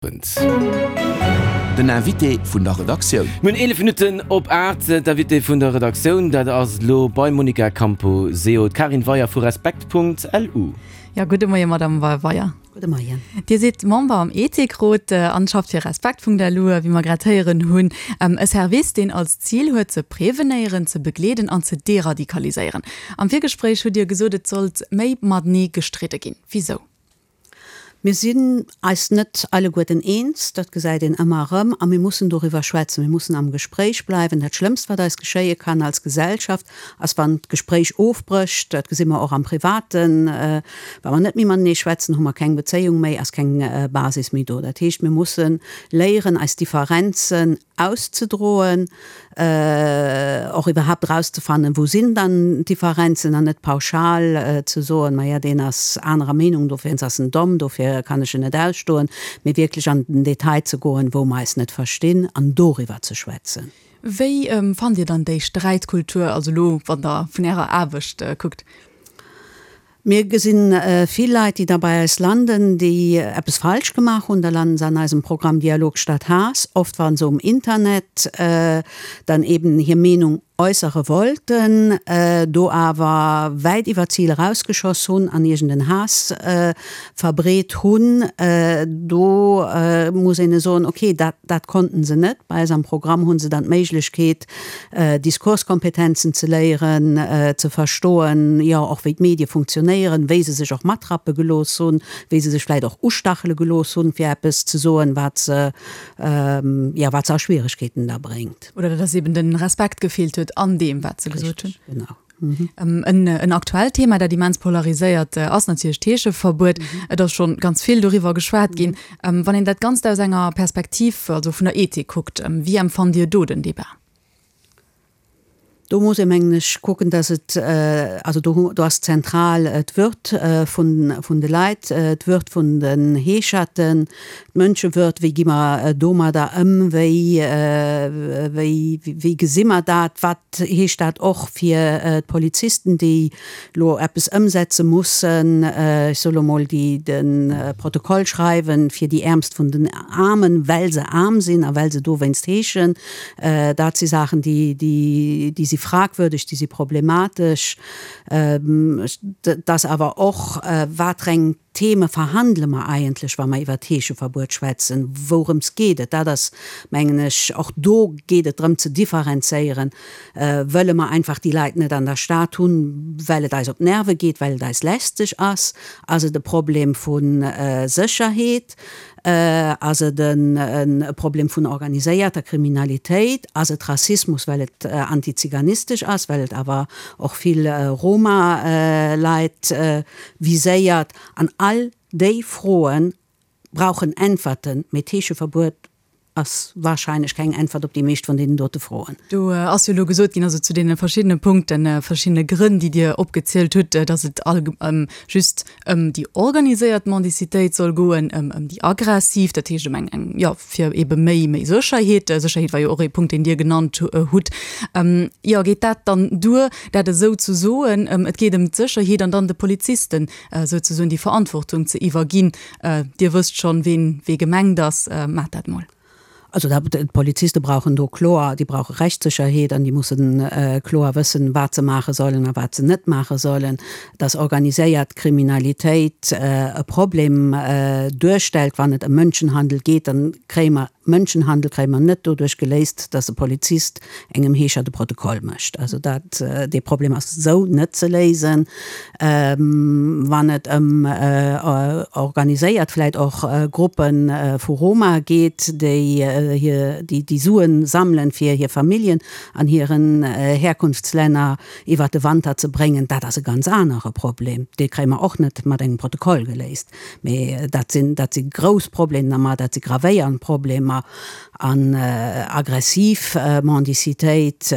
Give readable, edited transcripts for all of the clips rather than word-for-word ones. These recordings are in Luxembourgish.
Den Invité vun der Redaktioun. Mir hunn 11 Minutten op 8. D'Invitée vun der Redaktioun, dat ass elo beim Monica Camposeo d'Karin Weyer vu Respekt.lu. Jo, gudde Moie Madame Weyer. Gudde Moien. Dir sidd Member am Ethikrot an schafft fir Respekt.lu, wéi mer grad héieren hunn. E Service, deen als Zil huet ze prevenéieren, ze begleeden an ze deradikaliséieren. Am Virgespréich hutt Dir gesot, et sollt méi matenee gestridde ginn. Wisou? Mir sinn eis net alleguerten eens, dat gesäit een ëmmer erëm, a mir mussen doriwwer schwätzen. Mir mussen am Gespréich bleiwen. Dat Schlëmmst, wat eis geschéie kann als Gesellschaft, ass, wann d'Gespréich ofbrécht. Dat gesi mer och am Privaten. Wa mer net méi matenee schwätzen, hu mer keng Bezéiung méi, ass keng Basis méi do. Dat heescht, mir musse léieren, eis Differenzen auszedroen, och iwwerhaapt erauszefannen, wou sinn dann d'Differenzen an net pauschal ze soen, maja deen ass anerer Meenung, dofir ass en domm, dofir kann ech en net ausstoen, mee wierklech an den Detail ze goen, wou mer eis net verstinn an doriwwer ze schwätzen. Wéi fannt Dir dann déi Sträitkultur, also elo wann Der vun Ärer Aarbecht kuckt? Mir gesinn vill Leit, déi da bei eis landen, déi eppes falsch gemaach hunn. Da landen se an eisem Programm Dialog statt Haass, oft wa se um Internet dann eben hir Meenung äussere wollten, do awer wäit iwwer d'Zil erausgeschoss hunn an iergend en Haass verbreet hunn. Do muss een soen, okay, dat, dat konnten se net. Bei eis am Programm hu se dann d'Méiglechkeet, Diskurskompetenzen ze léieren, ze verstoen, jo och wéi d'Medie funktionéieren, wéi se sech och matrappe gelooss hunn, wéi se sech vläit och ustachele gelooss hunn, fir eppes ze soen, wat se, jo, wat se a Schwieregkeeten da bréngt. Oder dass eben de Respekt gefeelt huet an deem, wat se gesot hunn. Richtig, genau. En aktuellt Thema, dat immens polariséiert, ass natierlech d'Heescheverbuet. Et ass scho ganz vill doriwwer geschwat ginn. Wann een dat Ganzt aus enger Perspektiv, also vun der Ethik kuckt, wéi empfannt Dir do den Debat? Do muss ee mengen ech kucken, dass et, also do do ass zentral d'Würd vun vun de Leit, d'Würd vun den Heescherten, d'Mënschewürd, wéi gi mer domadder ëm, wéi wéi wéi gesi mer dat, wat heescht dat och fir d'Polizisten, déi elo eppes ëmsetze mussen, ech soe lo mol, déi de Protokoll schreiwen fir déi Äermst vun den Aarmen, well se aarm sinn a well se dowéinst heeschen. Dat si Saachen, déi, déi si fragwürdeg, déi si problematesch. Et ass awer och, wat reng Theme verhandele mer eigentlech, wa mer iwwert d'Heescheverbuet schwätzen? Wourëms geet et? Dat ass, mengen ech, och do geet et drëm ze differenzéieren. Wëlle mer einfach déi Leit net an der Stad hunn, well et eis op d'Nerve geet, well et eis lästeg ass? Ass et e Problem vu Sécherheet? Ass et e Problem vun organiséierter Kriminalitéit? Ass et Rassismus, well et antiziganistesch ass, well et awer och vill Roma-Leit viséiert. An all déi Froe brauchen Äntwerten, mee d'Heescheverbuet ass wahrscheinlech keng Äntwert op déi meescht vun deenen dote Froen. Do ass jo elo gesot ginn, also zu deene verschiddene Punkten, verschiddene Grënn, déi Dir opgezielt hutt, datt et allg just ëm déi organiséiert Mendicitéit soll goen, ëm ëm déi aggressiv, dat heescht ëm eng, eng, jo, fir ebe méi, méi Sécherheet. Sécherheet war jo och ee Punkt, deen Dir genannt hutt. Jo, geet dat dann duer, dat esou ze soen, et geet ëm d'Sécherheet an dann de Polizisten souzesoen déi Verantwortung ze iwwerginn, Dir wësst schonn, ween wee gemengt ass, maacht dat mol. Also d'Poliziste brauchen do kloer, déi brauche Rechtssécherheet an déi mussen kloer wëssen, wat se maache sollen a wat se net maache sollen. Dass organiséiert Kriminalitéit e Problem duerstellt, wann et ëm Mënschenhandel geet, dann kréie mer Mënschenhandel kréie mer net doduerch geléist, dass e Polizist engem Heescher de Protokoll mécht. Also dat, dee Problem ass esou net ze léisen. Wann et ëm organiséiert vläicht och Gruppe vu Roma geet, déi hir, déi déi Sue sammelen, fir hir Familljen an hiren Herkunftslänner iwwert de Wanter ze bréngen, dat ass e ganz anere Problem. Dee kréie mer och net mat engem Protokoll geléist. Mee dat sinn, dat si grouss Problemer, dat si gravéiernd Problemer. An aggressiv Mendicitéit,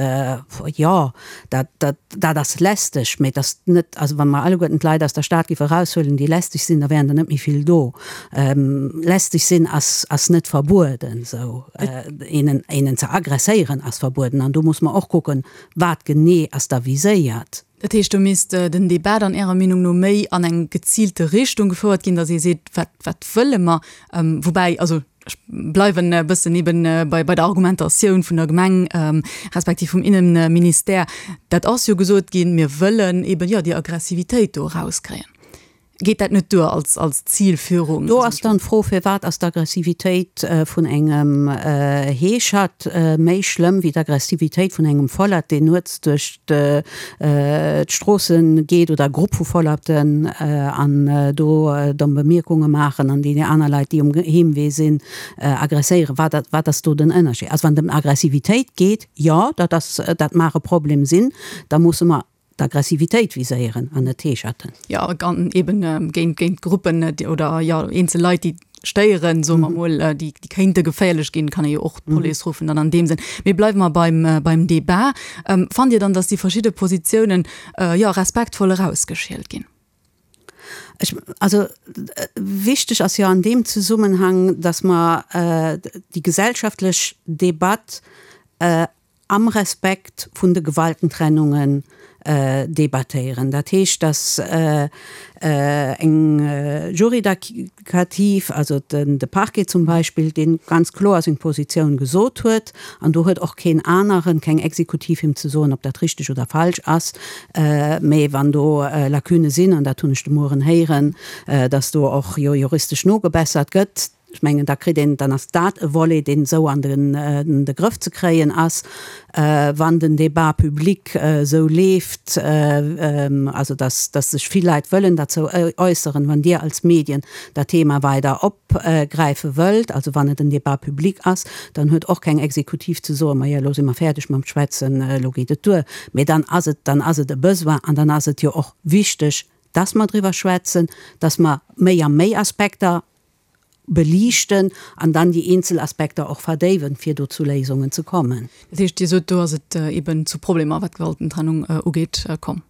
jo, dat, dat, dat ass lästeg, mee et ass net, also wa mer alleguerten d'Leit aus der Stad géife eraushuelen, déi lästeg sinn, da wären der net méi vill do. Lästeg sinn ass, ass net verbueden, esou. Een, een ze aggresséieren ass verbueden. An do muss mer och kucken, wat genee ass da viséiert. Dat heescht, do misst den Debat dann Ärer Meenung no méi an eng geziilte Richtung gefouert ginn, datt ee seet, wat, wat wëlle mer? Woubäi, also. Ech bleiwen e bëssen eben bei bei der Argumentatioun vun der Gemeng respektiv vum Innenministère. Dat ass jo gesot ginn, mir wëllen eben, jo, déi Aggressivitéit do erauskréien. Geet dat net duer als als Zilführung? Do ass dann d'Fro, Firwat ass d'Aggressivitéit vun engem Heeschert méi schlëmm wéi d'Aggressivitéit vun engem Vollert, deen nuets duerch d'Stroosse geet oder e Grupp vu Vollerten an do domm Bemierkunge maachen an déi aner Leit, déi um Heemwee sinn, aggresséieren. Wat, wat ass do den Ënnerscheed? Also wann et ëm Aggressivitéit geet, jo, dat ass, dat mag e Problem sinn, da musse mer d'Aggressivitéit viséieren an net d'Heescherten. Jo, an eben géint, géint Gruppen oder jo eenzel Leit, déi stéieren, soe mer mol, déi kéinte geféierlech ginn, kann ee jo och d'Police ruffen dann an deem Sënn. Mee bleiwe mer beim, beim Débat. Fannt Dir dann, datt déi verschidde Positiounen, jo, respektvoll erausgeschielt ginn? Ech, also wichteg ass jo an deem Zesummenhang, datt mer déi gesellschaftlech Debatt am Respekt vun de Gewaltentrennungen debattéieren. Dat heescht, datt eng Juridikativ, also de Parquet zum Beispill, dee ganz kloer seng Positioun gesot huet, an do huet och keen aneren, keng Exekutiv him ze soen, ob dat richteg oder falsch ass, mä wann do Lacunë sinn, an dat hunn ech de Mueren héieren, datt do och jo juristesch nogebessert gëtt, Ech mengen, da kritt een, dann ass dat e Volet, deen esou an de Grëff ze kréien ass, wann den Débat public esou leeft, also dass sech vill Leit wëllen derzou äusseren, wann Dir als Medien dat Thema weider opgräife wëllt, also wann et en Débat public ass, dann huet och keng Exekutiv ze soen, maja, elo si mer fäerdeg mam Schwätzen, elo geet et duer. Mee dann ass et, dann ass et e Besoin an dann ass et jo och wichteg, dass mer driwwer schwätzen, dass mer méi a méi Aspekter beliichten an dann déi eenzel Aspekter och verdéiwen, fir do zu Léisungen ze kommen. Dat heescht, Dir sot, do ass et eben zu Problemer, wat d'Gewaltentrennung ugeet, komm?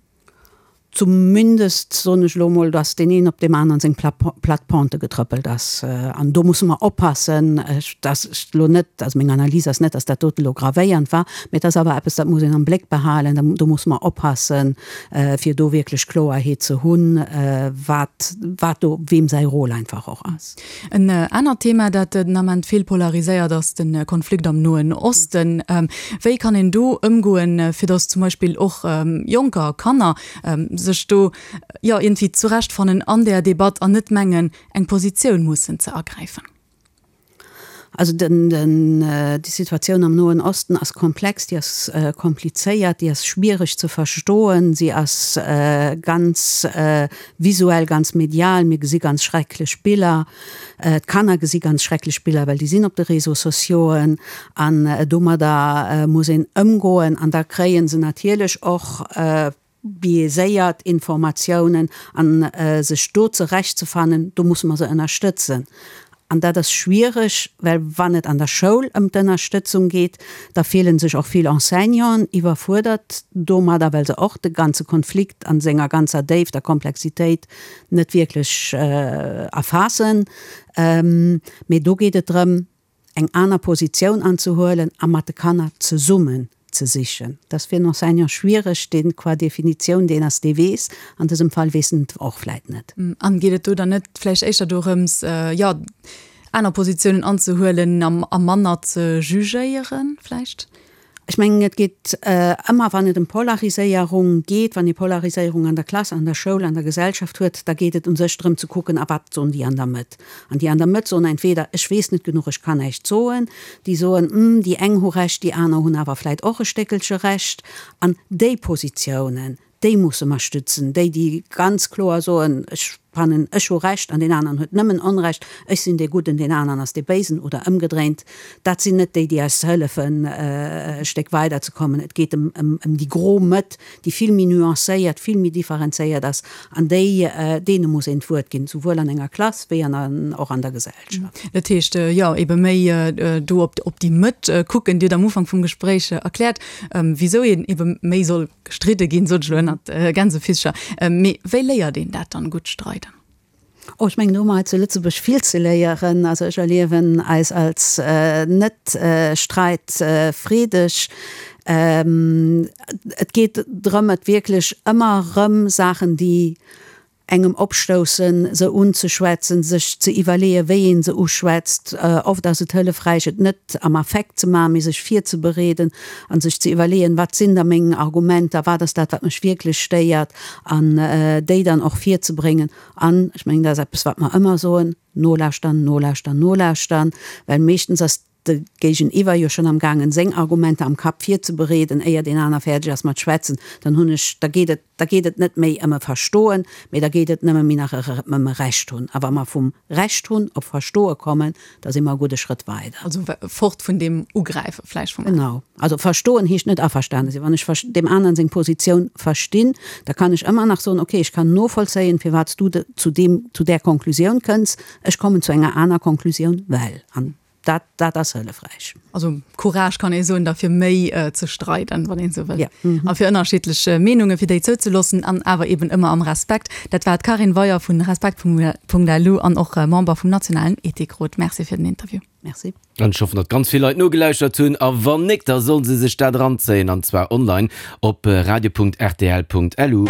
Zumindest soen ech elo emol, dass deen een op deem aneren seng platt Pente getrëppelt ass. An do musse mer oppassen, dass ech elo net, also meng Analys ass net, dass dat dote elo gravéiernd war, mä et ass awer eppes, dat muss een am Bléck behalen. Do musse mer oppassen, fir do wierklech Kloerheet ze hunn, wat, wat do weem säi Rôle einfach och ass. En anert Thema, dat den Ament vill polariséiert, ass de Konflikt am Noen Osten. Wéi kann een do ëmgoen, fir datt zum Beispill och Jonker a Kanner sech do, jo, iergendwéi zurechtfannen an där Debatt an net mengen, eng Positioun mussen ze ergräifen? Also den, den, déi Situatioun am Noen Osten ass komplex, déi ass komplizéiert, déi ass schwiereg ze verstoen, si ass ganz visuell, ganz medial. Mir gesi ganz schrecklech Biller, d'Kanner gesi ganz schrecklech Biller, well déi sinn op de Réseaux sociauxen an domadder muss een ëmgoen an da kréie se natierlech och, biaiséiert Informatiounen an sech do zerecht ze fannen, do musse mer se ënnerstëtzen. An dat ass schwiereg, well wann et an der Schoul ëm d'Ënnerstëtzung geet, da fillen sech och vill Enseignanten iwwerfuerdert domadder, well se och de ganze Konflikt a senger ganzer Déift a Komplexitéit net wierklech erfaassen. Mee do geet et drëm, eng aner Positioun anzehuelen a mat de Kanner zesummen ze sichen. Dat ass fir en Enseignant schwiereg, deen qua Definitioun deen ass, dee weess. An dësem Fall weess en et och vläit net. An geet et do dann net vläicht éischter dorëms, jo, aner Positiounen anzehuelen a manner ze jugéieren vläicht? Ech mengen, et geet ëmmer, wann et ëm Polariséierung geet, wann ee Polariséierung an der Klass, an der Schoul, an der Gesellschaft huet, da geet et u sech drëm ze kucken, a wat soen déi an der Mëtt. An déi an der Mëtt soen entweder, ech weess net genuch, ech kann näischt soen. Déi soen, hm, déi eng hu Recht, déi aner hunn awer vläit och e Stéckelche Recht. An déi Positiounen, Déi musse mer stützen, déi, déi ganz kloer soen, ech fannen, ech hu Recht an deen aneren huet nëmmen Onrecht, ech sinn dee Gudden, deen aneren ass dee Béisen oder ëmgedréint. Dat sinn net déi, déi eis hëllefen, e Stéck weiderzekommen. Et geet ëm déi gro Mëtt, déi vill méi nuancéiert, vill méi differenzéiert ass an déi, deene muss een d'Wuert ginn, souwuel an enger Klass wéi an och an der Gesellschaft. Dat heescht, jo, ebe méi do op déi Mëtt kucken. Dir hutt am Ufank vum Gespréich erkläert, wisou een ebe méi soll Gestridde ginn, sot ech elo ënnert Gänsefisscher. Mee wéi léiert een dat dann, gutt streiden? Oh, ech mengen, do hu mer hei zu Lëtzebuerg vill ze léieren. Also ech erliewen eis als net streitfreedeg. Et geet drëm, et wierklech ëmmer erëm Saachen, déi. Engem opstoussen, se unzeschwätzen, sech ze iwwerleeën, wéi ee se uschwätzt. Oft ass et hëllefräich, et net am Affekt ze maachen, mee sech virzebereeden a sech ze iwwerleeën, Wat sinn da meng Argumenter, wat ass dat, wat mech wierklech stéiert, an déi dann och virzebréngen. An ech mengen, dat ass eppes, wat mer ëmmer soen, Nolauschtern, nolauschtern, nolauschtern, well meeschtens ass de Géigeniwwer jo schonn am gaangen seng Argumenter am Kapp virzebereeden, éier deen aner fäerdeg ass mat schwätzen, dann hunn ech, da geet et, da geet et net méi ëm e Verstoen, mee da geet et nëmme méi nach ëm e Recht hunn. A wa mer vum Recht hunn op Verstoe kommen, da si mer e gudde Schrëtt weider. Also fort vun deem Ugräife vläicht vum. Genau. Also verstoen heescht net averstane sinn. Wann ech deem aneren seng Positioun verstinn, da kann ech ëmmer nach soen, okay, ech kann novollzéien, firwat s du zu deem, zu där Konklusioun kënns, ech kommen zu enger aner Konklusioun, well. An Dat, dat ass hëllefräich. Also Courage kann ee soen, da fir méi ze streiden, wann een esou wëll. A fir ënnerschiddlech Meenunge fir déi zouzeloossen an awer eben ëmmer am Respekt. Dat war d'Carine Weyer vun Respekt.lu an och Member vum nationalen Ethikrot. Merci fir den Interview. Merci. An ech hoffen, datt ganz vill Leit nogelauschtert hunn. A wann nik, da sollen se sech dat eranzéien, an zwar online op radio.rtl.lu.